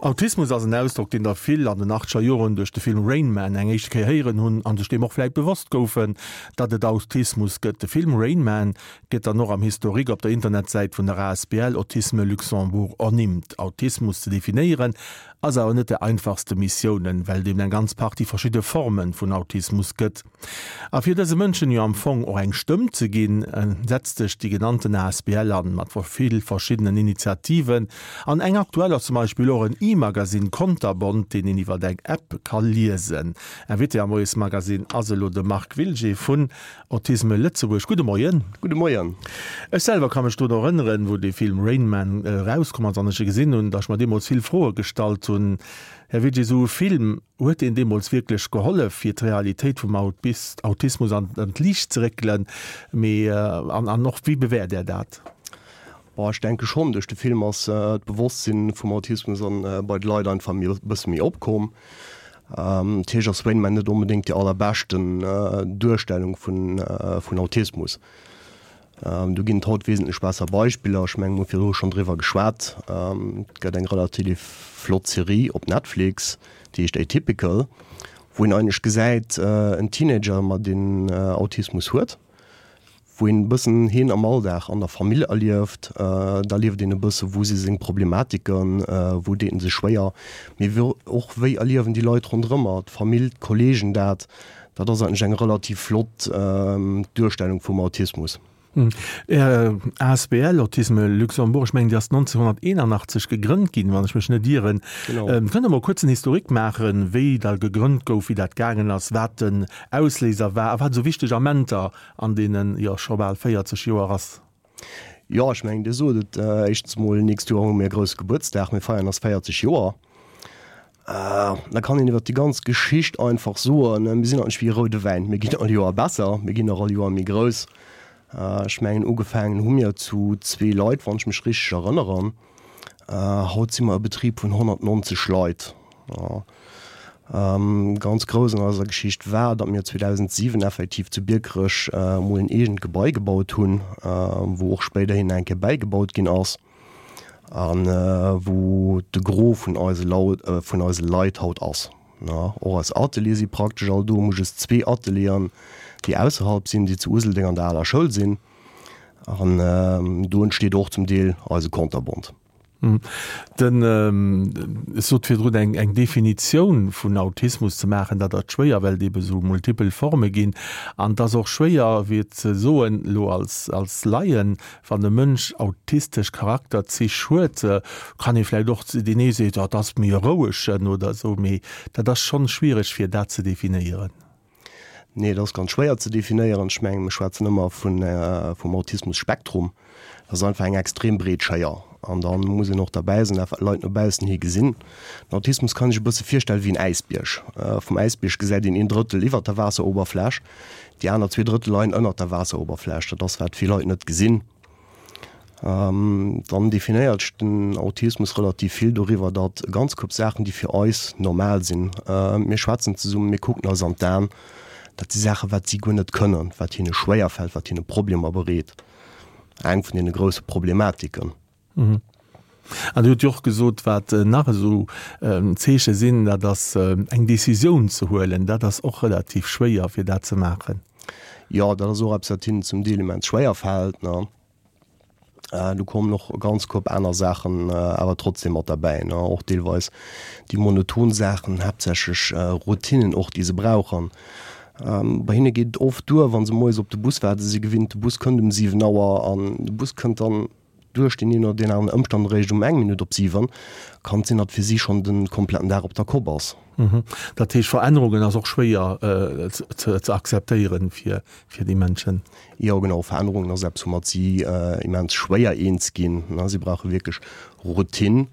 Autismus ass en Ausdrock, deen der vill an den achtzeger Joren duerch de Film Rain Man eng éischte Kéier héieren hunn an sech deem och vläit bewosst goufen, datt et Autismus gëtt. De Film Rain Man gëtt dann och am Historique op der Internetsäit vun der asbl Autisme Luxembourg ernimmt. Autismus ze definéieren ass awer net der einfachste Missiounen, well et eben eng ganz Partie verschidde Forme vun Autismus gëtt. A fir dëse Mënschen jo am Fong och eng Stëmm ze ginn, setzt sech déi genannten asbl an, mat vill verschiddenen Initiativen. An eng aktuell ass zum Beispill och en E-Magazine Konterbont, deen een iwwer eng App ka liesen. Invité am Moiesmagazine ass elo de Marc Wilgé vun Autisme Lëtzebuerg. Gudde Moien. Gudde Moien. Ech selwer ka mech drun erënneren, wou dee Film Rain Man erauskomm ass an ech e gesinn hunn, datt ech mer deemools vill Froe gestallt hunn. Här Wilgé, esou e Film, Huet deen deemools wierklech gehollef, fir d'Realitéit vum Autismus an d'Liicht ze réckelen? Mee an och wéi bewäert Där dat? Bon, ech denke schonn. Duerch de Film ass d'Bewosstsinn vum Autismus bei de Leit einfach e bësse méi opkomm. Natierlech ass Rain Man net onbedéngt déi allerbeschten Duerstellung vun Autismus. Do ginn et haut wesentlech besser Beispiller. Ech mengen, mir hu virdru schonn driwwer geschwat. Et gëtt eng relativ flott Serie op Netflix, déi heescht Atypical, wou een eigentlech gesäit, en Teenager, ma deen Autismus huet, wou een e bëssen hien am Alldag an der Famill erlieft. Da erlieft een e bësse wou si seng Problematiken, wou deet en sech schwéier, mee och wéi erliewen déi Leit ronderëmmer, d'Famill, d'Kollegen dat. Dat ass eigentlech eng relativ flott Duerstellung vum Autismus. Är asbl Autisme Luxembourg, ech mengen déi ass 1981 gegrënnt ginn, wann ech mech net ieren. Genau. Kënnt Der mol kuerz en Historique maachen, wéi der gegrënnt gouf, wéi dat gaangen ass, wat den Ausléiser war a wat esou wichteg Amenter an deenen, jo, scho bal 40 Joer ass? Jo, ech mengen, Dir sot et, éischtens mol, nächst Joer hu mir e grousse Gebuertsdag, mir feieren eis 40 Joer. Da kann een iwwer déi ganz Geschicht einfach soen, mir sinn eigentlech wéi e roude Wäin, mir ginn all Joer besser, mir ginn och all Joer méi grouss. Ech mengen, ugefaangen hu mir zu zwee Leit, wann ech mech richteg erënneren. Haut si mer e Betrib vun 190 Leit. Ganz grouss an eiser Geschicht war, datt mir 2007 effektiv zu Biekerech emol en eegent Gebai gebaut hunn, wou och spéiderhin eng Kéier bäigebaut ginn ass. A wou de Gros vun eise vun eise Leit haut ass. Och eis Ateliere si praktesch all do. Mir hu just zwee Atelieren, déi ausserhalb sinn, déi zu Useldeng an der aler Schoul sinn. An do entsteet och zum Deel eise Konterbont. Den, ech sot virdrun, eng eng Definitioun vun Autismus ze maachen, dat ass schwéier, well et ebe sou multipel Forme ginn. An et ass och schwéier, fir ze soen, elo als als Laien, Wann e Mënsch autistesch Charakterzich huet, kann ee vläicht och, deen ee seet, oh, dat ass méi e rouegen oder esou, mee dat ass schonn schwiereg fir dat ze definéieren. Nee, dat ass ganz schwéier ze definéieren. Ech mengen, mir schwätzen ëmmer vun, vum Autismus-Spektrum. Dat ass einfach eng extrem breet Schéier. An da muss een och derbäi sinn, dat wat d'Leit no baussen hi gesinn. Den Autismus kann ee sech e bësse virstelle wéi en Äisbierg. Vum Äisbierg gesäit een een Drëttel iwwert der Waasseroberfläch. Déi aner zwee Drëttel leien ënnert der Waasseroberfläch. Dat ass, wat vill Leit net gesinn. Dann definéiert sech den Autismus relativ vill doriwwer, datt e ganz Koup Saachen, déi fir eis normal sinn, mir schwätzen zesummen, mir kucken eis an d'Aen, dat si Saachen, wat si guer net kënnen, wat hinne schwéierfält, wat hinne Problemer bereet. Eng vun deene grousse Problematiken. An Dir hutt jo och gesot, wat nach esou Zeeche sinn, dat ass eng Decisioun ze huelen. Dat ass och relativ schwéier, fir dat ze maachen. Jo, dat ass och eppes, wat hinnen zum Deel immens schwéier fält. Do kommen och e ganz Koup aner Saachen awer trotzdem mat derbäi, och deelweis déi monoton Saachen, haaptsächlech Routinen och, déi se brauchen. Bei hinne geet et oft duer, wa se moies op de Bus waarden, se si gewinnt, de Bus kënnt um 7 Auer an de Bus kënnt dann duerch deen een oder deen aneren Ëmstand eréischt um eng Minutt op 7, kann et sinn, datt fir si schonn de kompletten Dag op der Kopp ass. Dat heescht, Verännerungen ass och schwéier ze akzeptéieren fir déi Mënschen? Jo, genau, Verännerungen ass eppes, woumat si immens schwéier eens ginn. Si brauche wierklech Routine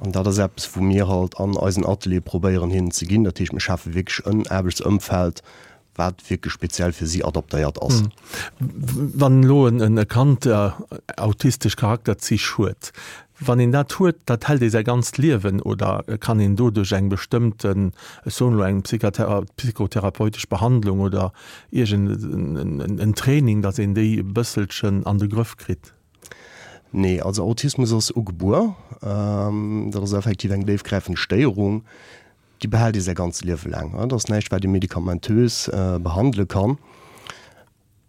an dat ass eppes, wou mir halt an eisen Ateliere probéieren hinnen ze ginn. Dat heescht, mir schafe wierklech en Aarbechtsëmfeld, wat wierklech speziell fir si adaptéiert ass. Wann elo e Kand autistesch Charakterzich huet, wann een dat huet, dat hält ee säi ganzt Liewen oder kann een do duerch eng bestëmmten, ech soen elo eng psychotherapeutesch Behandlung oder iergend en Training, datt een déi e bësselchen an de Grëff kritt? Nee, also Autismus ass ugebuer. Dat ass effektiv eng déifgräifend Stéierung, déi behält ee säi ganzt Liewe laang. Dat ass näischt, wat ee medikamentös behandele kann.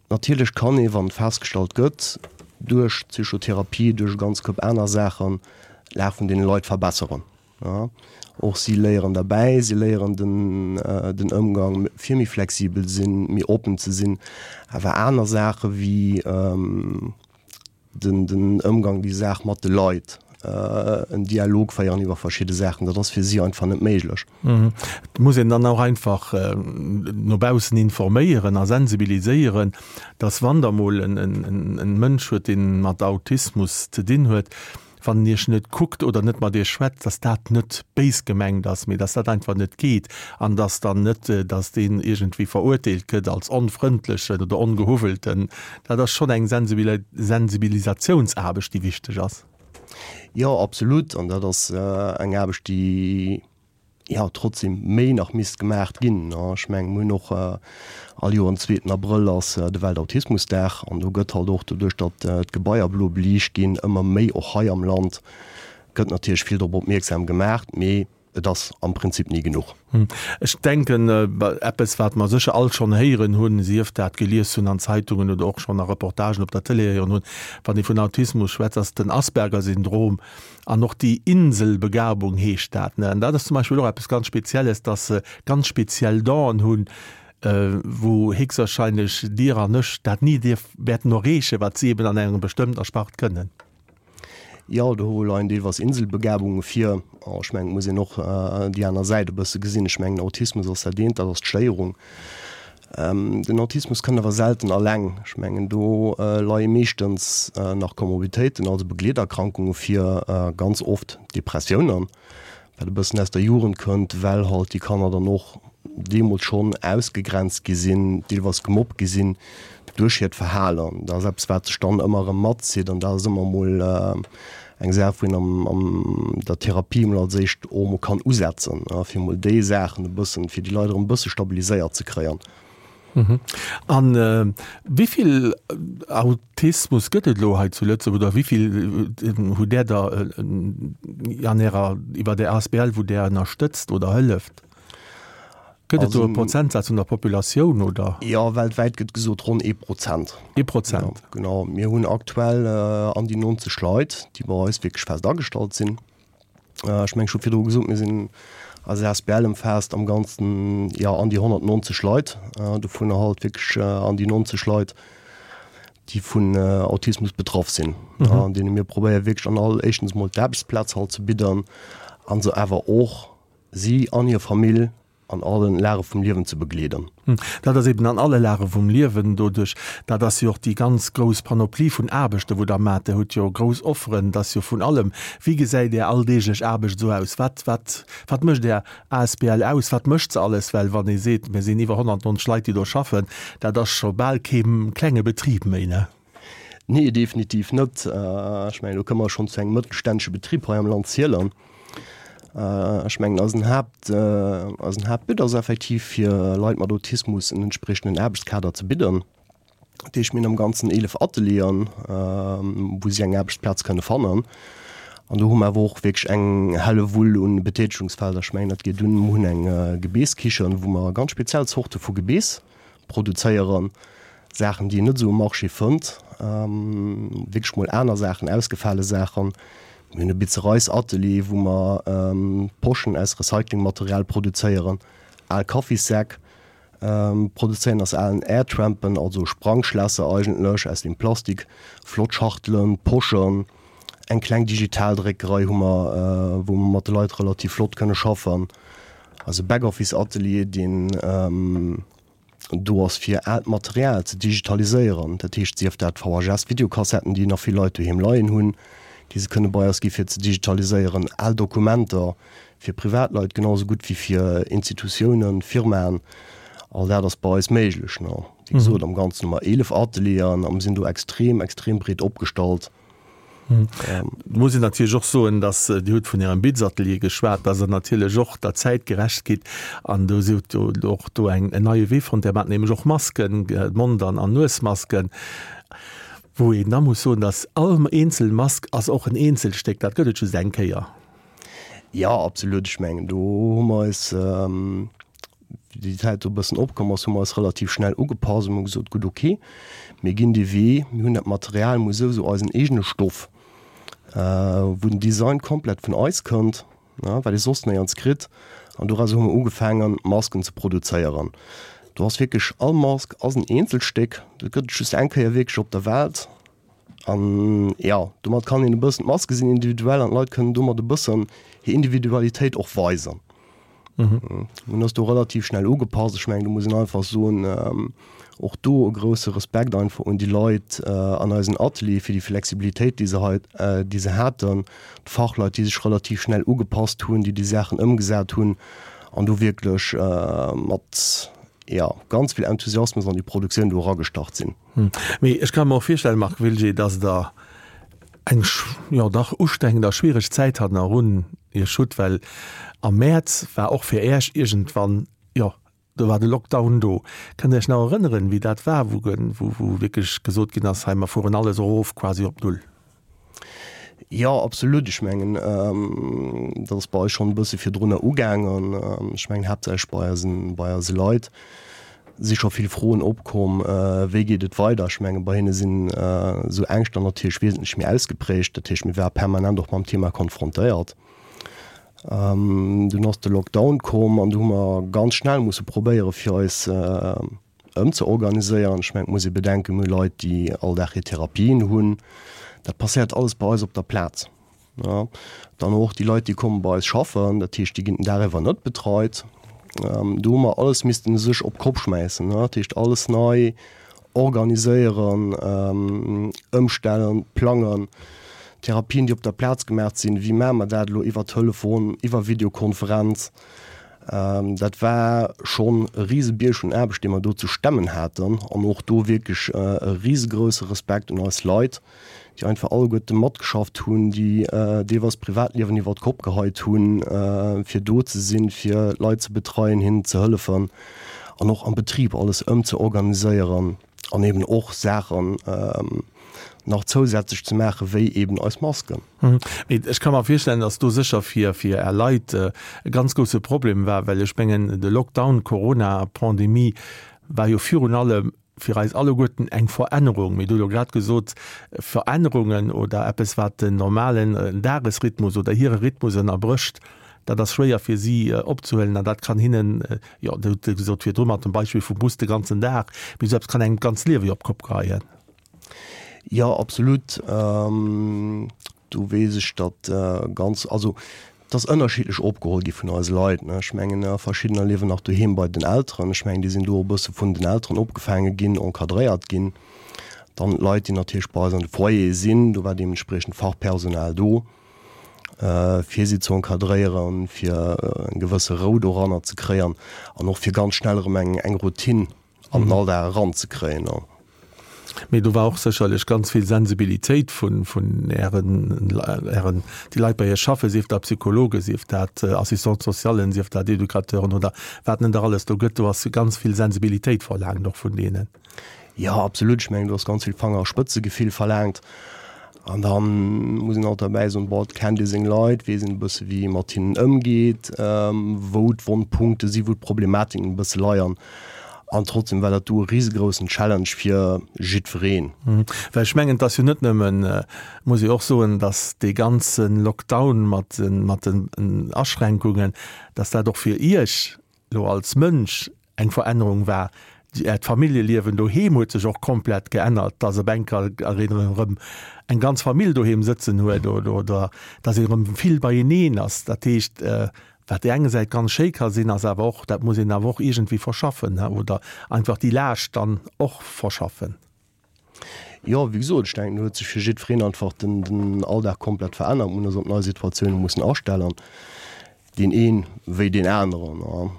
Natierlech kann ee, wann et festgestallt gëtt, duerch Psychotherapie, duerch e ganz Koup aner Saachen, d'Lag vun deene Leit verbesseren. Och si léieren derbäi, si léieren den den Ëmgang fir méi flexibel sinn, méi oppen ze sinn. Awer aner Saache wéi den den Ëmgang, déi Saach mat de Leit, en Dialog féieren iwwer verschidde Saachen, dat ass fir si einfach net méiglech. Et muss een dann och einfach no baussen informéieren a sensibiliséieren, dass wann der mol en en Mënsch huet, deen mat Autismus ze dinn huet, wann en iech net kuckt oder net mat iech schwätzt, dass dat net béis gemengt ass, mee dass dat einfach net geet an dass dann net, dass deen iergendwéi verurteelt gëtt als onfrëndlechen oder ongehuwwelten. Dat ass schonn eng Sensibilisatiounsaarbecht, déi wichteg ass. Jo, absolut. An dat ass eng Aarbecht, déi jo trotzdem méi nach misst gemaacht ginn. Ech mengen, mir hunn och all Joer den zweeten Abrëll ass de Weltautismusdag an do gëtt halt och doduerch, datt d'Gebaier blo beliicht ginn, ëmmer méi och hei am Land gëtt natierlech vill drop opmierksam gemaacht, mee et ass am Prinzip ni genuch. Ech denken, eppes wat mer sécher all schonn héieren hunn, sief dat gelies hunn an Zeitungen oder och schonn a Reportagen op der Tëlee héieren hunn, wann ee vun Autismus schwätzt, ass den Asperger-Syndrom an och déi Inselbegabung heescht dat. An dat ass zum Beispill och eppes ganz Spezielles, dass se ganz speziell Donen hunn, wou héchstwahrscheinlech Dir an ech dat ni dierf wäerten erreechen, wat si eben an engem bestëmmter Spart kënnen. Jo, do leien deelweis Inselbegabunge vir. Ech mengen, et muss een och déi aner Säit e bësse gesinn. Ech mengen, Autismus ass dat eent, dat ass d'Stéierung. Den Autismus kënnt awer selten alleng. Ech mengen, do leie meeschtens nach Komorbiditéiten, also Begleeterkrankunge vir, ganz oft Depressiounen, wat e bëssen aus der Jugend kënnt, well halt déi Kanner dann och deemools schonn ausgegrenzt gi sinn, deelweis gemobbt gi sinn duerch hiert Verhalen. Dat ass eppes, wat sech dann ëmmer erëm matzitt an dat ass ëmmer emol eng Saach, wou een am an der Therapie emol als éischt och emol kann usetzen, fir emol déi Saachen e bëssen, fir déi Leit erëm e bësse stabiliséiert ze kréien. A wéi vill Autismus gëtt et elo hei zu Lëtzebuerg oder wéi vill hutt Där der an Ärer, iwwer Är asbl, wou Där ënnerstëtzt oder hëlleft? Gëtt et do e Prozentsaz vun der Populatioun, oder? Jo, weltwäit gëtt gesot ronn ee Prozent. Ee Prozent. Jo, genau. Mir hunn aktuell an déi 90 Leit, déi bei eis wierklech fest agestallt sinn. Ech mengen, ech hu virdru gesot, mir sinn, eis asbl ëmfaasst am Ganzen, jo, an déi 190 Leit, dovunner halt wierklech an déi 90 Leit, déi vun Autismus betraff sinn, an deene mir probéiere wierklech an all, éischtens emol d'Aarbechtsplaz halt ze bidden a se awer och si an hir Famill an allen Lage vum Liewen ze begleeden. Dat ass eben an alle Lage vum Liewen doduerch, dat ass jo och déi ganz grouss Panoplie vun Aarbechten, wou Der maacht. Der hutt jo grouss Offeren, et ass jo vun allem. Wéi gesäit Är alldeeglech Aarbecht esou aus? Wat, wat, wat mécht Är asbl aus? Wat mécht se alles? Well wann ee seet, mir sinn iwwer 190 Leit, déi do schaffen, dat ass scho bal kee klenge Betrib méi, ne? Nee, definitiv net. Ech mengen, do kënne mer schonn zu engem mëttelständesche Betrib hei am Land zielen. Ech mengen, eisen Haapt, eisen Haaptbut ass effektiv, fir Leit mat Autismus en entspriechenden Aarbechtskader ze bidden. Dat heescht, mir hunn am Ganzen 11 Atelieren, wou si eng Aarbechtsplaz kënne fannen. An do hu mer awer och wierklech eng Hellewull un Betätigungsfelder. Ech mengen, dat geet un, mir hunn eng Gebeesskichen, wou mer ganz speziell Zorte vu Gebees produzéieren, Saachen, déi een net esou um Marché fënnt, wierklech mol aner Saachen, ausgefale Saachen. Mir hunn e Bizereisatelier, wou mer Poschen aus Recyclingmaterial produzéieren, al Kaffissäck produzéieren aus alen Airtrampen, also Sprangschlässer eigentlech aus dem Plastik, flott Schachtelen, Poschen. Eng kleng Digitaldréckerei hu mer, wou mer mat de Leit relativ flott kënne schaffen. Eise Backoffice-Atelier, deen do ass fir aalt Material ze digitaliséieren, dat heescht sief dat VHS-Videokassetten, déi nach vill Leit doheem leien hunn, déi se kënne bei eis gi fir ze digitaliséieren, al Dokumenter fir Privatleit genau esou gutt wéi fir Institutiounen, Firmaen, all dat ass bei eis méiglech. Wéi gesot, am Ganzen hu mer 11 Atelieren a mir sinn do extrem, extrem breet opgestallt. Et muss een natierlech och soen, dass, Dir hutt vun Ärem Bitzatelier geschwat, dass Der natierlech och der Zäit gerecht gitt an do sidd Der och do en neie Wee fonnt. Där maacht nämlech och Masken, Mond an Nuesmasken. Wou een da muss soen, dass all eenzel Mask ass och en Eenzelstéck, dat gëtt et just eng Kéier. Jo, absolut. Ech mengen, do hu mer eis, wéi déi Zäit do e bëssen opkomm ass, hu mer eis relativ schnell ugepasst an hu gesot, gutt, ok, mir ginn dee Wee, mir hunn dat Material, mir hu souwisou eisen eegene Stoff, wou den Design komplett vun eis kënnt. wat ee soss néierns kritt, an doraus hu mer ugefaangen Masken ze produzéieren. Do ass wierklech all Mask ass en Eenzelstéck, dat gëtt et just eng Kéier wierklech op der Welt an jo, domat kann een e bëssen, d'Maske sinn individuell an d'Leit kënnen domat e bëssen hir Individualitéit och weisen. Mir hunn eis do relativ schnell ugepasst. Ech mengen, do muss een einfach soen, och do e grousse Respekt einfach un déi Leit an eisen Ateliere fir déi Flexibilitéit, déi se hei, déi se haten, d'Fachleit, déi sech relativ schnell ugepasst hunn, déi déi Saachen ëmgesat hunn an do wierklech mat, jo, ganz vill Enthusiasmus an déi Produktioun do eragestart sinn. Mee ech ka mer och virstellen, Marc Wilgé, dass Der eng, jo dach ustrengend a schwiereg Zäit hannerun Iech hutt, well am Mäerz war och fir Äech iergendwann, jo, do war de Lockdown do. Kënnt Der Iech nach erënneren, wéi dat war, wou wou wierklech gesot ginn ass, hei mer fueren alles erof quasi op Null? Jo, absolut. Ech mengen, dat ass bei eis schonn e bësse virdrunner ugaangen. Ech mengen haaptsächlech bei eisen, bei eise Leit si scho vill Froen opkomm, wéi geet et weider. Ech menge bei hinne sinn esou Ängschter natierlech wesentlech méi ausgeprägt. Dat heescht, mir ware permanent och mam Thema konfrontéiert. Dunn ass de Lockdown komm an du hu mer ganz schnell musse probéiere fir eis ëmzeorganiséieren. Ech mengen, et muss ee bedenken, mir hu Leit, déi all Dag hir Therapien hunn. Dat passéiert alles bei eis op der Plaz. Dann och déi Leit, déi komme bei eis schaffen, dat heescht, déi ginn den Dag iwwer net betreit. Do hu mer alles missten u sech op d'Kopp schmäissen, dat heescht alles nei organiséieren, ëmstellen, plangen. Therapien, déi op der Plaz gemaach sinn, wéi maache mer dat elo iwwer Telefon, iwwer Videokonferenz? Dat war schonn e Risebierg un Aarbecht, dee mer do ze stemmen haten an och do wierklech e risegrousse Respekt un eis Leit, déi einfach alleguerte matgeschafft hunn, déi deelweis d'Privatliewen iwwer d'Kopp geheit hunn, fir do ze sinn, fir d'Leit ze betreien, hinnen ze hëllefen an och am Betrib alles ëmzeorganiséieren an eben och Saachen nach zousätzlech ze maachen, wéi eben eis Masken. Mee ech ka mer virstellen, datt do sécher fir fir Är Leit e ganz grousse Problem war, well ech mengen, de Lockdown, d'Corona-Pandemie war jo virun allem fir eis alleguerten eng Verännerung. Mir hu jo grad gesot, Verännerungen oder eppes, wat den normalen Dagesrhythmus oder hire Rhythmus ënnerbrécht, dat ass schwéier fir si opzehuelen an dat kann hinnen, jo, Dir hutt gesot virdru mat dem Beispill vum Bus de ganzen Dag, mee esou eppes kann engem d'ganzt Liewe jo op d'Kopp geheien. Jo, absolut. Do weess ech, datt ganz, also et ass ënnerschiddlech opgeholl gi vun eise Leit, ne. Ech mengen, verschiddener liewen nach doheem bei den Elteren. Ech mengen, déi sinn do e bësse vun den Elteren opgefaange ginn, encadréiert ginn. Dann d'Leit, déi natierlech bei eis an de Foyere sinn, do war deementspriechend Fachpersonal do, fir si ze encadréieren, fir eng gewësse Rou doranner ze kréien an och fir ganz schnell erëm eng Routine an den Alldag eranzekréien. Mee do war och sécherlech ganz vill Sensibilitéit vun, vun Ären, Ären, déi Leit bei Iech schaffen, sief dat Psychologen, sief dat Assistante socialen, sief dat Educateuren oder wat net nach alles do gëtt. Do ass ganz vill Sensibilitéit verlaangt och vun deenen. Jo, absolut. Ech mengen, do ass ganz vill Fangerspëtzegefill verlaangt. An da muss een alt derbäi soen, bon, et kennt ee seng Leit, weess een e bësse wéi ee mat hinnen ëmgeet, wou d'Wonnpunkte sinn, wou d'Problematiken e bësse leiern. An trotzdem war dat do e risegroussen Challenge fir jiddwereen. Well ech mengen, et ass jo net nëmmen, muss ee och soen, datt dee ganze Lockdown mat den Aschränkungen, datt dat och fir Iech elo als Mënsch eng Verännerung war. Äert Familljeliewen doheem huet sech och komplett geännert, dass op enker een erëm eng ganz Famill doheem sëtzen huet oder dass een erëm vill beieneen ass. Dat heescht, wat déi eng Säit ganz schéi ka sinn, ass awer och, dat muss een awer och iergendwéi verschaffen oder einfach déi Laascht dann och verschaffen. Jo, wéi gesot, ech denken, do huet sech fir jiddwereen einfach den, den Alldag komplett verännert. Mir hunn eis op nei Situatioune mussen astellen, deen een wéi deen aneren.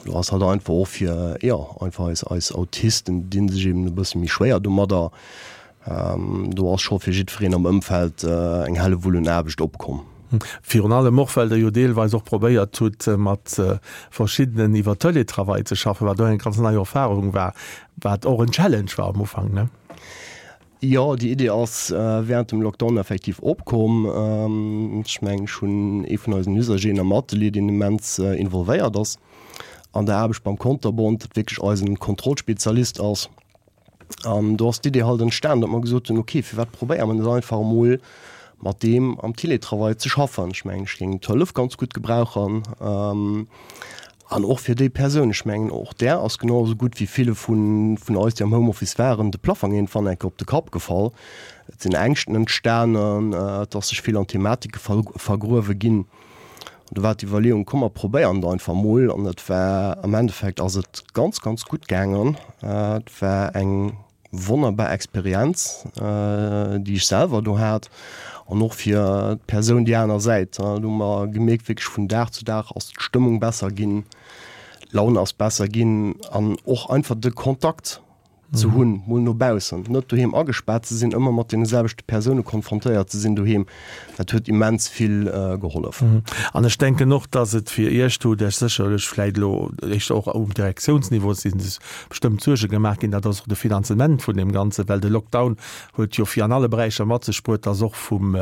Do ass halt einfach och fir, jo, einfach eis, eis Autisten dinn sech eben e bësse méi schwéier domadder. Do ass scho fir jiddwereen am Ëmfeld eng Hellewull un Aarbecht opkomm. Virun allem och, well Der jo deelweis och probéiert hutt, mat verschiddenen iwwer Teletravail ze schaffen, wat och eng ganz nei Erfahrung war, wat och en Challenge war am Ufank, ne? Jo, déi Idee ass während dem Lockdown effektiv opkomm. Ech mengen, ech hunn ee vun eisen Usageren am Atelier, deen immens involvéiert ass an der Aarbecht beim Konterbont, dat wierklech eisen Kontrollspezialist ass. An do ass d'Idee halt entstan, datt mer gesot hunn, ok, firwat probéiere mer net einfach emol mat deem am Teletravail ze schaffen? Ech mengen, ech géing d'Hëllef ganz gutt gebrauchen. An och fir déi Persoun, ech mengen, och där ass genau esou gutt wéi ville vun eis, déi am Homeoffice waren, de Plaffong iergendwann eng Kéier op de Kapp gefall. Et sinn Ängschten entstanen, et ass sech vill an Thematike vergruewe ginn. An do war d'Iwwerleeung, komm mer probéieren et einfach mol. An et war, am Endeffekt ass et ganz, ganz gutt gaangen. Et war eng Wonnerbar Experienz, déi ech selwer do hat an och fir d'Persoun déi aner Säit. Do hu mer gemierkt, wierklech vun Dag zu Dag ass d'Stëmmung besser ginn, d'Laun ass besser ginn an och einfach de Kontakt ze hunn, mol no baussen, net doheem agespaart ze sinn, ëmmer mat deene selwechte Persoune konfrontéiert ze sinn doheem, dat huet immens vill gehollef. An ech denken och, dass et fir Iech, do hutt Iech sécherlech vläicht elo éischter och um Direktiounsniveau si bestëmmt Suerge gemaach ginn, dat ass och de Finanzement vun deem Ganzen, well de Lockdown huet jo fir an alle Beräicher mat sech bruet, dass och vum,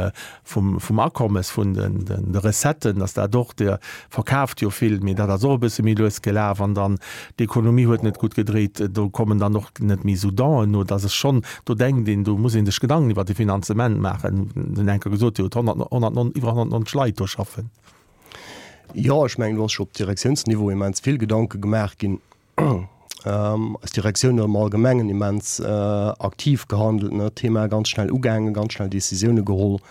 vum, vum Akommes, vun den, den, de Recetten, dass dat och, Dir verkaaft jo vill, mee dat ass och e bësse méi lues gelaf an dann d'Ekonomie huet net gutt gedréit, do kommen dann och net méi esou Donen no, dass es schonn, do denkt een, do muss ee sech Gedanken iwwert de Finanzement maachen. Den Henker gesot, Dir hutt 100, 109, iwwer 190 Leit do schaffen. Jo, ech mengen, do ass scho op Direktiounsniveau immens vill Gedanke gemaach ginn. Eis Direktioun huet am Allgemengen immens aktiv gehandelt, ne, d'Thema ganz schnell ugaangen, ganz schnell Decisioune geholl.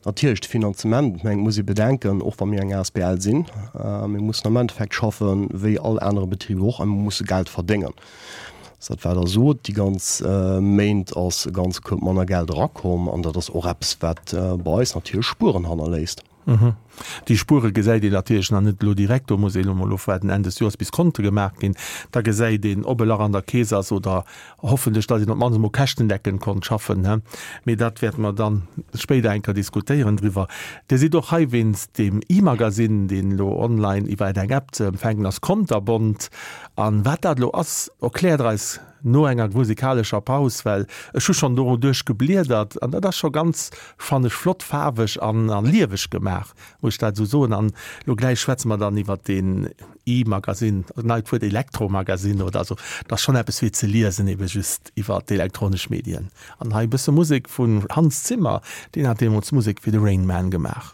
Natierlech de Finanzement, ech mengen, et muss ee bedenken, och wa mir eng asbl sinn, mir mussen am Endeffekt schaffe wéi all anere Betrib och a mir musse Geld verdéngen. Dat wat Der sot, déi ganz Méint ass e ganze Koup manner Geld erakomm an dat ass och eppes, wat bei eis natierlech Spueren hannerléisst. Déi Spuere gesäit een natierlech nach net elo direkt. Do muss een elo mol ofwaarden Enn des Joers, bis Konte gemaach ginn. Da gesäit een, ob e Lach an der Keess ass oder hoffentlech, datt een op d'mannst emol käschtendeckend konnt schaffen. Mee dat wäerte mer dann spéider eng Kéier diskutéieren driwwer. Dir sidd och hei wéinst deem E-Magasinn, deen elo online iwwer eng App ze empfänken ass, Konterbont. A wat dat elo ass, erkläert Der eis no enger musikalescher Paus, well ech hu schonn doruduerch gebliedert an dat ass scho ganz, fannen ech, flott faarweg an lieweg gemaach, muss ech dat esou soen. An elo gläich schwätze mer dann iwwert deen E-Magazine, neit Wuert, Elektromagazine oder esou. Dat ass schonn eppes fir ze liesen, ebe just iwwer d'elektronesch Medien. An hei e bësse Musek vun Hans Zimmer, deen hat deemools d'Musek fir de Rain Man gemaach.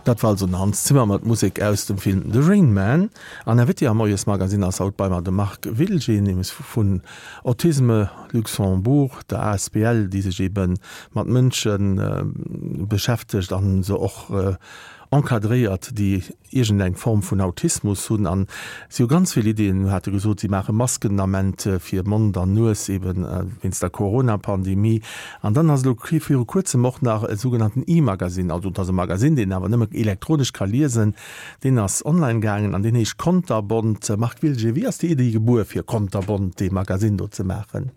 Dat war also den Hans Zimmer mat Musek aus dem Film The Rain Man. An Invité am Moiesmagasinn ass haut bei mer de Marc Wilgen, nämlech vun Autisme Luxembourg, der asbl, déi sech ebe mat Mënsche beschäftegt a se och encadréiert, déi iergendeng Form vun Autismus hunn an si hu ganz vill Iddien, hate gesot, si maache Masken den Ament fir Mond an Nues eben wéinst der Corona-Pandemie. An dann ass elo viru kuerzem och nach e sougenannten E-Magasinn, also et ass e Magasinn, deen een awer nëmme elektronesch ka liesen, deen ass online gaangen an deen heescht Konterbont. Marc Wilger, wéi ass déi Iddi gebuer fir Konterbont, dee Magasinn do ze maachen?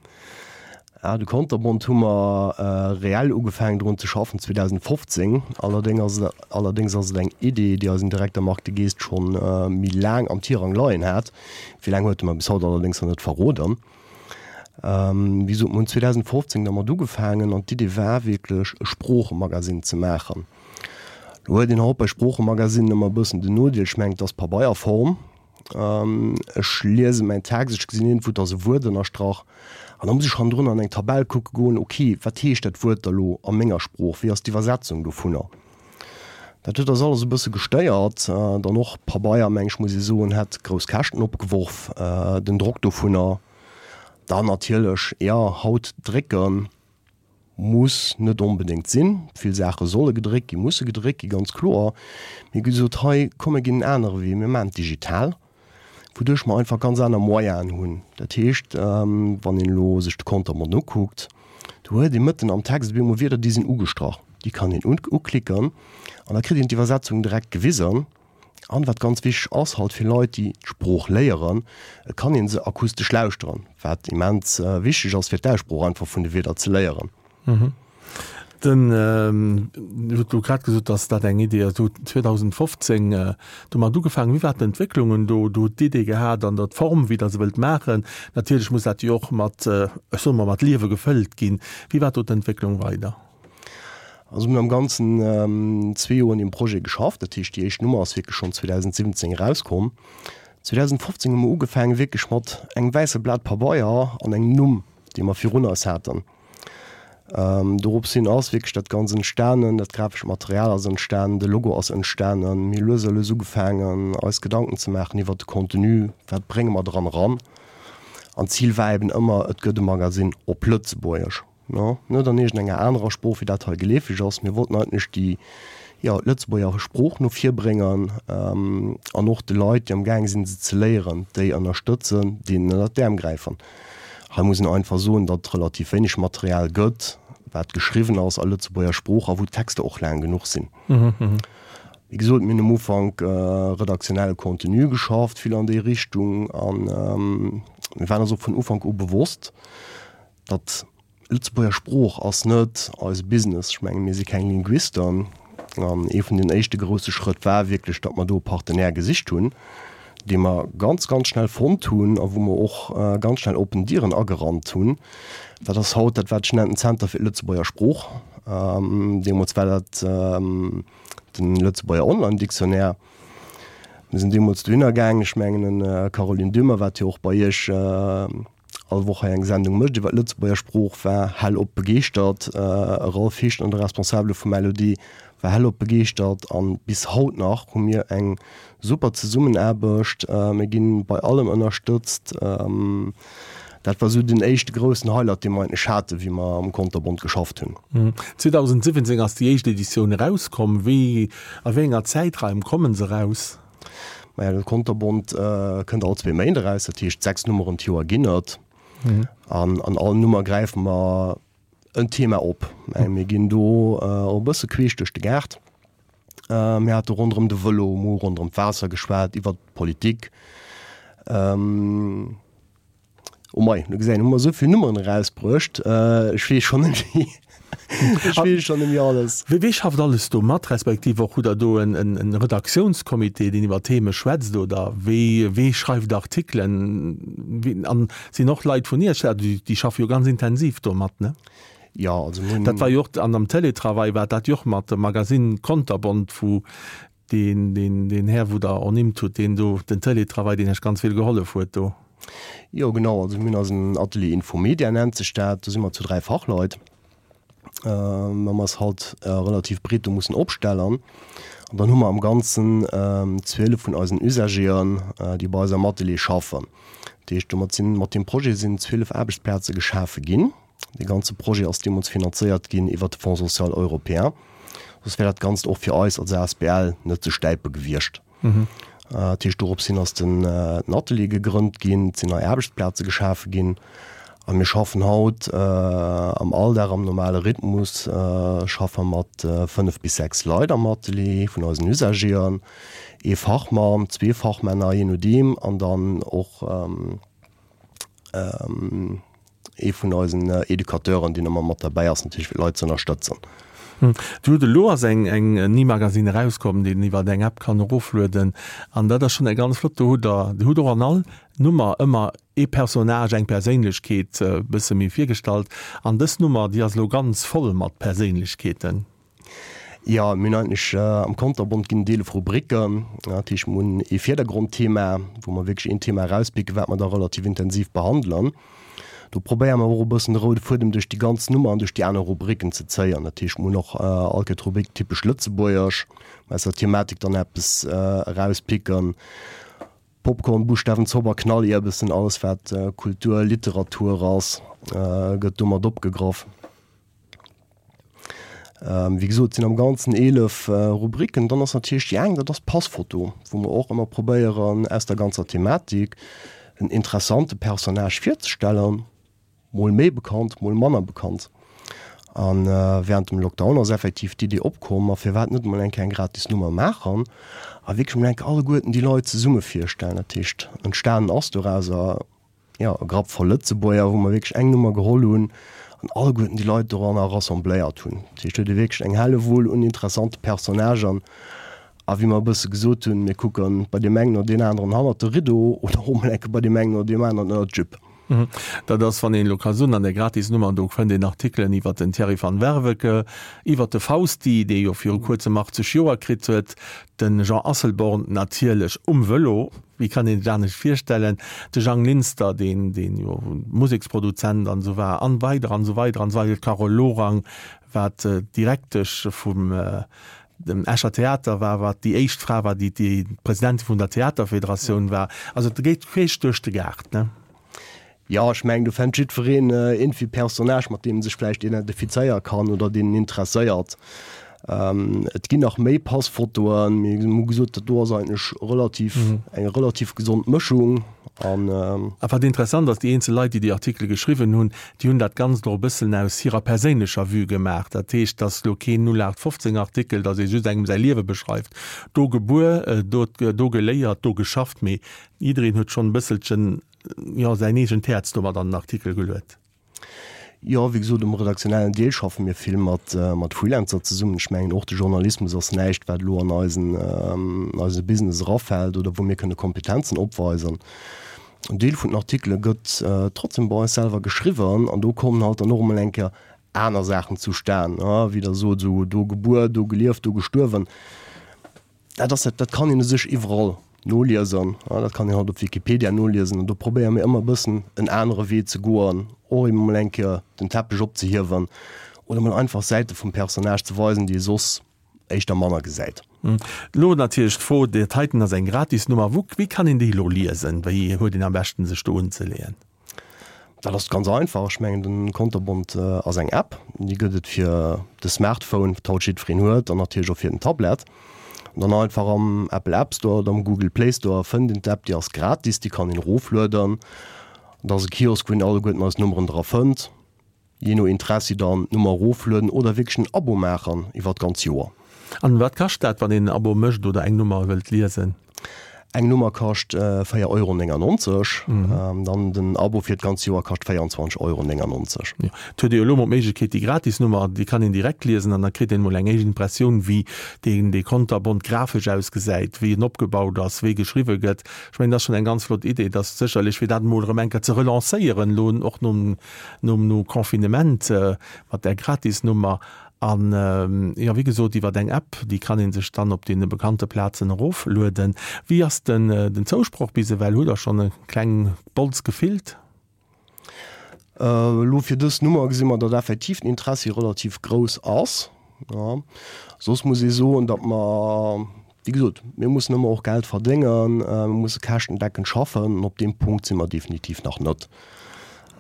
Ah, de Konterbont hu mer reell ugefaangen drun ze schaffen 2015. Allerdéng ass et, allerdéngs ass et eng Idee, déi eisen Direkter Marc De Geest schonn méi laang am Tirang leien hat. Wéi laang huet e mer bis haut allerdéngs nach net verroden. Wéi gesot, mer hunn 2015 dermat ugefaangen an d'Idee war wierklech e Sproochemagasinn ze maachen. Lo huet een haut bei Sproochemagasinnen ëmmer e bëssen den Nodeel, ech mengen et ass Pabeierform, Ech liese mäin Text, ech gesinn iergendwou, et ass e Wuert ënnerstrach an da muss ech hannendrun an eng Tabell kucke goen, ok, wat heescht dat Wuert da lo a menger Sprooch, wéi ass d'Iwwersetzung dovunner? Dat huet eis alles e bësse gestéiert. Dann och Pabeier, meng ech, muss ee soen, hätt grouss Käschten opgeworf, den Drock dovunner. Dann natierlech, jo, haut drécken. Muss net onbedéngt sinn. Vill Saache solle gedréckt ginn, musse gedréckt ginn, ganz kloer. Mee gesot, hei, komm mir ginn en anere Wee, mir maachen et digital, wouduerch mer einfach ganz aner Moyenen hunn. Dat heescht, wann een elo sech de Kontermont ukuckt, do huet ee mëtten am Text op eemol Wierder, déi sinn ugestrach, déi kann een uklicken an da kritt een d'Iwwersetzung direkt gewisen. An wat ganz wichteg ass halt fir Leit, déi d'Sprooch léieren, et kann ee se akustesch lauschteren, wat immens wichteg ass fir d'Aussprooch einfach vun de Wierder ze léieren. Den, Dir hutt elo grad gesot, dass dat eng Idee ass. Dir hutt 2015 domat ugefaangen. Wéi war d'Entwécklungen do? Dir hutt d'Idee gehat an der d'Form, wéi Der se wëllt maachen. Natierlech muss dat jo och mat, ech soe mol, mat Liewe gefëllt ginn. Wéi war do d'Entwécklung weider? Also mir hunn am Ganzen zwee Joer un deem Projet geschafft. Dat heescht, déi éischt Nummer ass wierklech schonn 2017 erauskomm. 2015 hu mer ugefaangen, wierklech mat engem wäisse Blat Pabeier an engem Numm, dee mer virun eis haten. Dorops hin ass wierklech dat Ganzt entstanen, dat grafescht Material ass entstanen, de Logo ass entstanen. Mir hu lues a lues ugefaangen, eis Gedanken ze maachen iwwert de Contenu, wat brénge mer dran eran. An d'Zil war eben ëmmer, et gëtt e Magasinn op Lëtzebuergesch. No, net an iergendenger anerer Sprooch, wéi dat hei geleefeg ass. Mir wollten eigentlech déi, jo, d'Lëtzebuerger Sprooch no vir bréngen an och de Leit, déi am gaange sinn, se ze léieren, déi ënnerstëtzen, deenen ënnert d'Äerm gräifen. Hei muss een einfach soen, datt et relativ wéineg Material gëtt, wat geschriwwen ass a Lëtzebuerger Sprooch a wou d'Texter och laang genuch sinn. Wéi gesot, mir hunn um Ufank redaktionelle Contenu geschafft, vill an déi Richtung, a mir waren eis och vun Ufank u bewosst, Datt Lëtzebuerger Sprooch ass net eise Business. Ech menge mir si keng Linguisten. An ee vun den éischte grousse Schrëtt war wierklech, datt mer do e Partenaire gesicht hunn, dee mer ganz, ganz schnell fonnt hunn a wou mer och ganz schnell oppen Dieren agerannt hunn. Dat ass haut dat, wat ech nennen Zenter fir d'Lëtzebuerger Sprooch. Deemools war dat de Lëtzebuerger Online-Dictionnaire. Mir sinn deemools dohinner gaangen. Ech mengen, d'Caroline Döhmer, wat jo och bei Iech, all Woch hei eng Sendung mécht iwwer d'Lëtzebuerger Sprooch, war hellop begeeschtert. E Ralph Heeschner, de Responsabele vum LOD, war hellop begeeschtert an bis haut nach hu mir eng super Zesummenaarbecht. Mir ginn bei allem ënnerstëtzt. Dat war esou den éischte groussen Highlight, dee mer eigentlech haten, wéi mer am Konterbont geschafft hunn. 2017 ass déi éischt Editioun erauskomm. Wéi, a wéi enger Zäitraim kommen se eraus? Maja, de Konterbont kënnt all zwee Méint eraus, dat heescht 6 Nummeren d'Joer ginn et. An an all Nummer gräife mer en Thema op. Mir ginn do och e bësse queesch duerch de Gaart. Mir hate ronderëm de Vëlo, mir hu ronderëm d'Waasser geschwat, iwwer d'Politik. Oh mei, du gesäis, hu mer esou vill Nummeren erausbruecht, ech weess schonn net méi, ech weess schonn net méi alles. Wee wee schafft alles do mat, respektiv och hutt Der do en en Redaktiounscomité, deen iwwer Theme schwätzt oder wee wee schreift Artikelen? Wee an sinn och Leit vun Iech, déi déi schaffe jo ganz intensiv do mat, ne? Jo, also mir hunn. Dat war jo och an am Télétravail war dat jo och mat dem Magazine Konterbont, wou Deen, deen, deen Här, wou Der ernimmt hutt, deen do den Télétravail, deen Iech ganz vill gehollef huet do. Jo, genau. Also mir hunn eisen Atelier Infomedia nennt sech dat. Do si mer zu 3 Fachleit. Mä mer ass halt relativ breet do mussen opstellen. An dann hu mer am Ganzen 12 vun eisen Usagéen, déi bei eis am Atelier schaffen. Dat heescht, domat sinn, mat deem Projet sinn 12 Aarbechtsplaze geschafe ginn. Dee ganze Projet ass deemools finanzéiert ginn iwwert de Fonds social européen. Soss wär dat Ganzt och fir eis als asbl net ze stäipe gewiescht. Dat heescht, dorops hin ass den Atelier gegrënnt ginn, et sinn nei Aarbechtsplaze geschafe ginn a mir schaffen haut am Alldag am normale Rhythmus schaffe mat 5 bis 6 Leit am Atelier vun eisen Usagéen, ee Fachmann, zwee Fachmänner, jee nodeem, an dann och Ee vun eisen Educateuren, deen ëmmer mat derbäi ass, natierlech fir d'Leit ze ënnerstëtzen. Dir hutt elo ass eng eng Ni-Magazine erauskomm, deen een iwwer eng App kann eroflueden an dat ass schonn eng ganz flott. Do hutt Der, Dir hutt och an all Nummer ëmmer ee Personnage, eng Perséinlechkeet e bësse méi virgestallt an dës Nummer, déi ass elo ganz voll mat Perséinlechkeeten. Jo, mir hunn eigentlech am Konterbont ginn et 11 Rubriken. Dat heescht, mir hunn ee Virdergrondthema, wou mer wierklech een Thema erauspicken, wat mer da relativ intensiv behandelen. Do probéiere mer och e bëssen de roude Fuedem duerch déi ganz Nummer an duerch déi aner Rubriken ze zéien. Dat heescht, mir hunn och all Kéier d'Rubrik Typesch Lëtzebuergesch, wou mer aus der Thematik dann eppes erauspicken. Popcorn, Buschtawen, Zobber, Knallierbessen, alles wat Kultur, Literatur ass, gëtt do mat opgegraff. Wéi gesot, et sinn am Ganzen 11 Rubriken. Dann ass natierlech déi eng, dat ass d'Passfoto, wou mer och ëmmer probéieren, aus der ganzer Thematik en interessante Personnage virzestellen, mol méi bekannt, mol manner bekannt. A wärend dem Lockdown ass effektiv d'Idee opkomm, ma firwat net emol eng Kéier eng gratis Nummer maachen a wierklech emol eng Kéier alleguerten déi Leit zesumme virstellen. Dat heescht, entstanen ass dorauser jo, e Grapp voll Lëtzebuerger, wou mer wierklech eng Nummer geholl hunn an alleguerten déi Leit doranner rassembléiert hunn. Dat heescht, do huet ee wierklech eng Hellewull un interessante Personnagen. A wéi mer e bësse gesot hunn, mir kucke bei deem engen oder deen aneren hannert de Rideau oder och emol eng Kéier bei deem engen oder deem aneren ënnert d'Jupe. Dat ass, wann een elo ka soen, an där Gratisnummer, do fënnt een Artikelen iwwert den Thierry van Werveke, iwwert de Fausti, dee jo viru kuerzem 80 Joer kritt huet, de Jean Asselborn natierlech um Vëlo, Wéi kann een sech anescht virstellen, de Jang Linster, deen, deen jo Museksproduzent an esou war, an weider an esou weider an esou weider, d'Carole Lorang, wat d'Direktesch vum dem Escher Theater war, wat déi éischt Fra war, déi déi Presidentin vun der Theaterfederatioun war. Also et geet queesch duerch de Gaart, ne? Jo, ech mengen, do fennt jiddwereen iergendwéi e Personnage, mat deem e sech vläicht identifizéiere kann oder deen en interesséiert. Et ginn nach méi Passfotoen, mee mir hu gesot, dat do ass eigentlech relativ, eng relativ gesond Mëschung. An. A wat interessant ass, déi eenzel Leit, déi déi Artikele geschriwwen hunn, déi hunn dat Ganzt och e bëssen aus hirer perséinlecher Vue gemaach. Dat heescht, dass elo keen 0815 Artikel, dass ee just engem säi Liewe beschreift, do gebuer, do, do geléiert, do geschafft, mee jiddereen huet schonn e bësselchen jo, säin eegent Häerz domat an den Artikel geluet. Jo, wéi gesot, um redaktionellen Deel schaffe mir vill mat, mat Freelancer zesummen. Ech mengen, och de Journalismus ass näischt, wat elo an eisen, eise Business erafält oder wou mir kënne Kompetenzen opweisen. En Deel vun den Artikele gëtt trotzdem bei eis selwer geschriwwen an do kommen halt dann och emol eng Kéier aner Saachen zustan, wéi Der sot, esou do gebuer, do gelieft, do gestuerwen. Dat ass dat, dat kann een u sech iwwerall noliesen, dat kann een haut op Wikipedia noliesen an do probéiere mir ëmmer e bëssen en anere Wee ze goen, och eben emol eng Kéier den Teppech opzehiewen oder emol einfach Säite vum Personnage ze weisen, déi ee soss éischter manner gesäit. Elo natierlech d'Fro, dat heiten ass eng Gratisnummer, wou, wéi kann een déi elo liesen? Wéi huet een am beschten sech do unzeleeën? Dat ass ganz einfach. Ech mengen den Konterbont ass eng App, déi gëtt et fir de Smartphone, wat haut jiddwereen huet, an natierlech och fir den Tablet. An dann einfach am Apple App Store oder am Google Play Store fënnt een d'App, déi ass gratis, déi kann een eroflueden. Dat ass e Kiosk, wou een alleguerten eis Nummeren dra fënnt. Jee no Interessi dann d'Nummer eroflueden oder wierklech en Abo maachen iwwer d'ganz Joer. An wat kascht dat, wann een en Abo mécht oder eng Nummer wëllt liesen? Eng Nummer kascht 4,99 Euro, dann den Abo fir d'ganz Joer kascht 24,99 Euro. Jo, et huet ee jo elo mol d'Méiglechkeet, déi gratis Nummer, déi kann een direkt liesen an da kritt een mol eng éischt Impressioun, wéi deen dee Konterbont grafesch ausgesäit, wéi en opgebaut ass, wéi geschriwwe gëtt. Ech mengen, dat ass schonn eng ganz flott Idee, dass sécherlech, fir dat emol erëm eng Kéier ze relancéieren, elo och nom nom no Confinement mat där Gratisnummer an jo wéi gesot iwwert eng App, déi kann ee sech dann op deene bekannte Plazen eroflueden. Wéi ass den den Zousproch bis ewell? Hutt der schonn e kleng Bols gefillt? Elo fir dës Nummer gesi mer, datt effektiv den Interessi relativ grouss ass. Jo. Soss muss ee soen, datt mer, wéi gesot, mir mussen ëmmer och Geld verdéngen, mir musse käschtendeckend schaffen an op deem Punkt si mer definitiv nach net.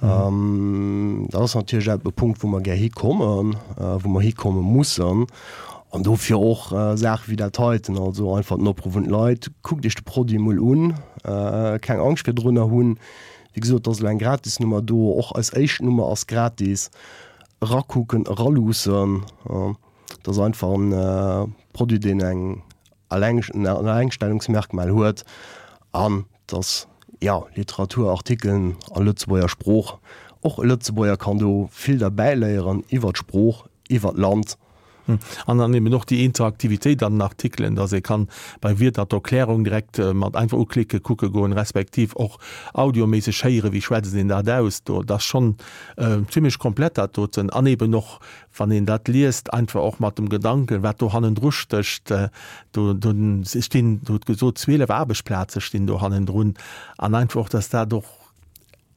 Dat ass natierlech e Punkt, wou mer gär hikommen, wou mer hikomme mussen. An dofir och Saache wéi dat heiten, also einfach den Opruff un d'Leit, Kuckt Iech de Produit emol un, keng Angscht virdrunner hunn. Wéi gesot, et ass elo eng Gratisnummer do, och eis éischt Nummer ass gratis. Erakucken, eraluussen. Et ass einfach e Produit, deen eng en Allengstellungsmerkmal huet an et ass, jo, Literatur, Artikelen a Lëtzebuerger Sprooch. Och e Lëtzebuerger kann do vill derbäiléieren iwwer d'Sprooch, iwwer d'Land. An dann eben och déi Interaktivitéit an den Artikelen, dass ee kann bei Wierder d'Erklärung direkt mat einfach uklicke kucke goen, respektiv och audioméisseg héieren, wéi schwätzt een dat aus. Do, dat ass schonn zimlech komplett dat doten. An eben och, wann een dat liest, einfach och mat dem Gedanken, wat do hannendru stécht. Do, do stinn, Du hutt gesot, 12 Aarbechtsplaze stinn do hannendrun. An einfach och, dass dat och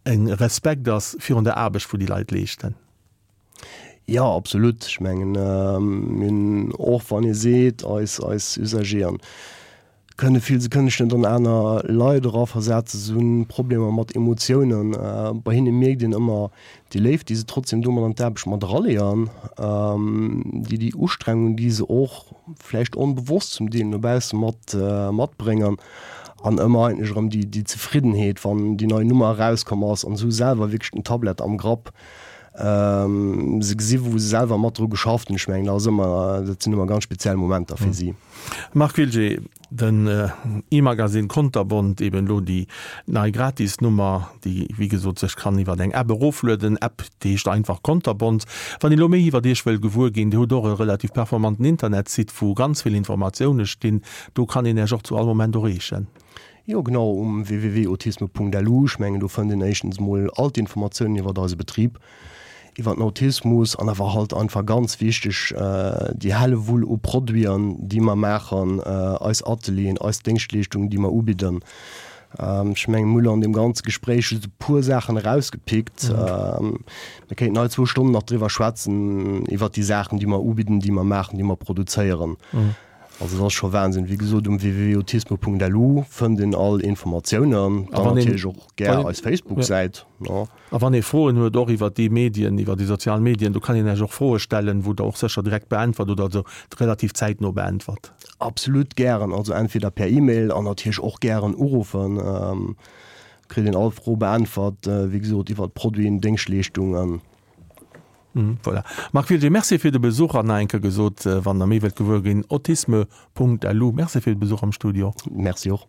e Respekt ass virun der Aarbecht, wou déi Leit leeschten. Jo, absolut. Ech mengen, mir hunn och, wann ee seet, eis, eis Usageren kënne vill, se kënne sech net an aner Leit eraversetzen, se hunn Problemer mat Emotiounen. Bei hinne mierkt een ëmmer déi Léift, déi se trotzdem do mat an d'Aarbecht mat eraleeën, déi, déi Ustrengung, déi se och vläicht onbewosst zum Deel no bausse mat, matbréngen an ëmmer eigentlech erëm déi, déi Zefriddenheet, wann déi nei Nummer erauskomm ass an se hu selwer wierklech den Tablett am Grapp. Se gesi wou se selwer mat dru geschafft hunn. Ech mengen dat ass ëmmer, dat sinn ëmmer ganz speziell Momenter fir si. Marc Wilgé, Den e-Magasinn Konterbont, eben elo déi nei Gratisnummer, déi wéi gesot sech kann iwwer eng App eroflueden, App déi heescht einfach Konterbont. Wann ee lo méi iwwer Iech wëll gewuer ginn, Dir hutt och e relativ performanten Internetsite wou ganz vill Informatioune stinn, do kann een Iech och zu all Moment erreechen. Jo genau, um www.autisme.lu. Ech mengen do fënnt een éischtens mol all d'Informatiounen iwwert eise Betrib, iwwert den Autismus an awer halt einfach ganz wichteg déi Hellewull u Produiten déi mer maachen, eis Atelieren, eis Déngschtleeschtungen déi mer ubidden. Ech mengen mir hu lo an deem ganze Gespréich just e puer Saachen erausgepickt. Mir kéinten hei zwou Stonnen nach driwwer schwätzen iwwert déi Saachen déi mer ubidden, déi mer maachen, déi mer produzéieren. Also et ass scho Wahnsinn. Wéi gesot, um www.autisme.lu fënnt een all Informatiounen. Dann natierlech och gär eis Facebook-Säit. A wann ee Froen huet, och iwwer déi Medien, iwwer déi sozial Medien, do kann een Iech och Froe stellen, wou Der och sécher direkt beäntwert oder also relativ zäitno beäntwert. Absolut gären. Also entweder per E-Mail an natierlech och gären uruffen. Kritt een all Fro beäntwert, wéi gesot, iwwer Produiten, Déngschtleeschtungen. Voilà. Marc Wiltgen, Merci fir de Besuch an nach eng Kéier gesot, wann Der méi wëllt gewuer ginn, autisme.lu. Merci fir de Besuch am Studio. Merci och.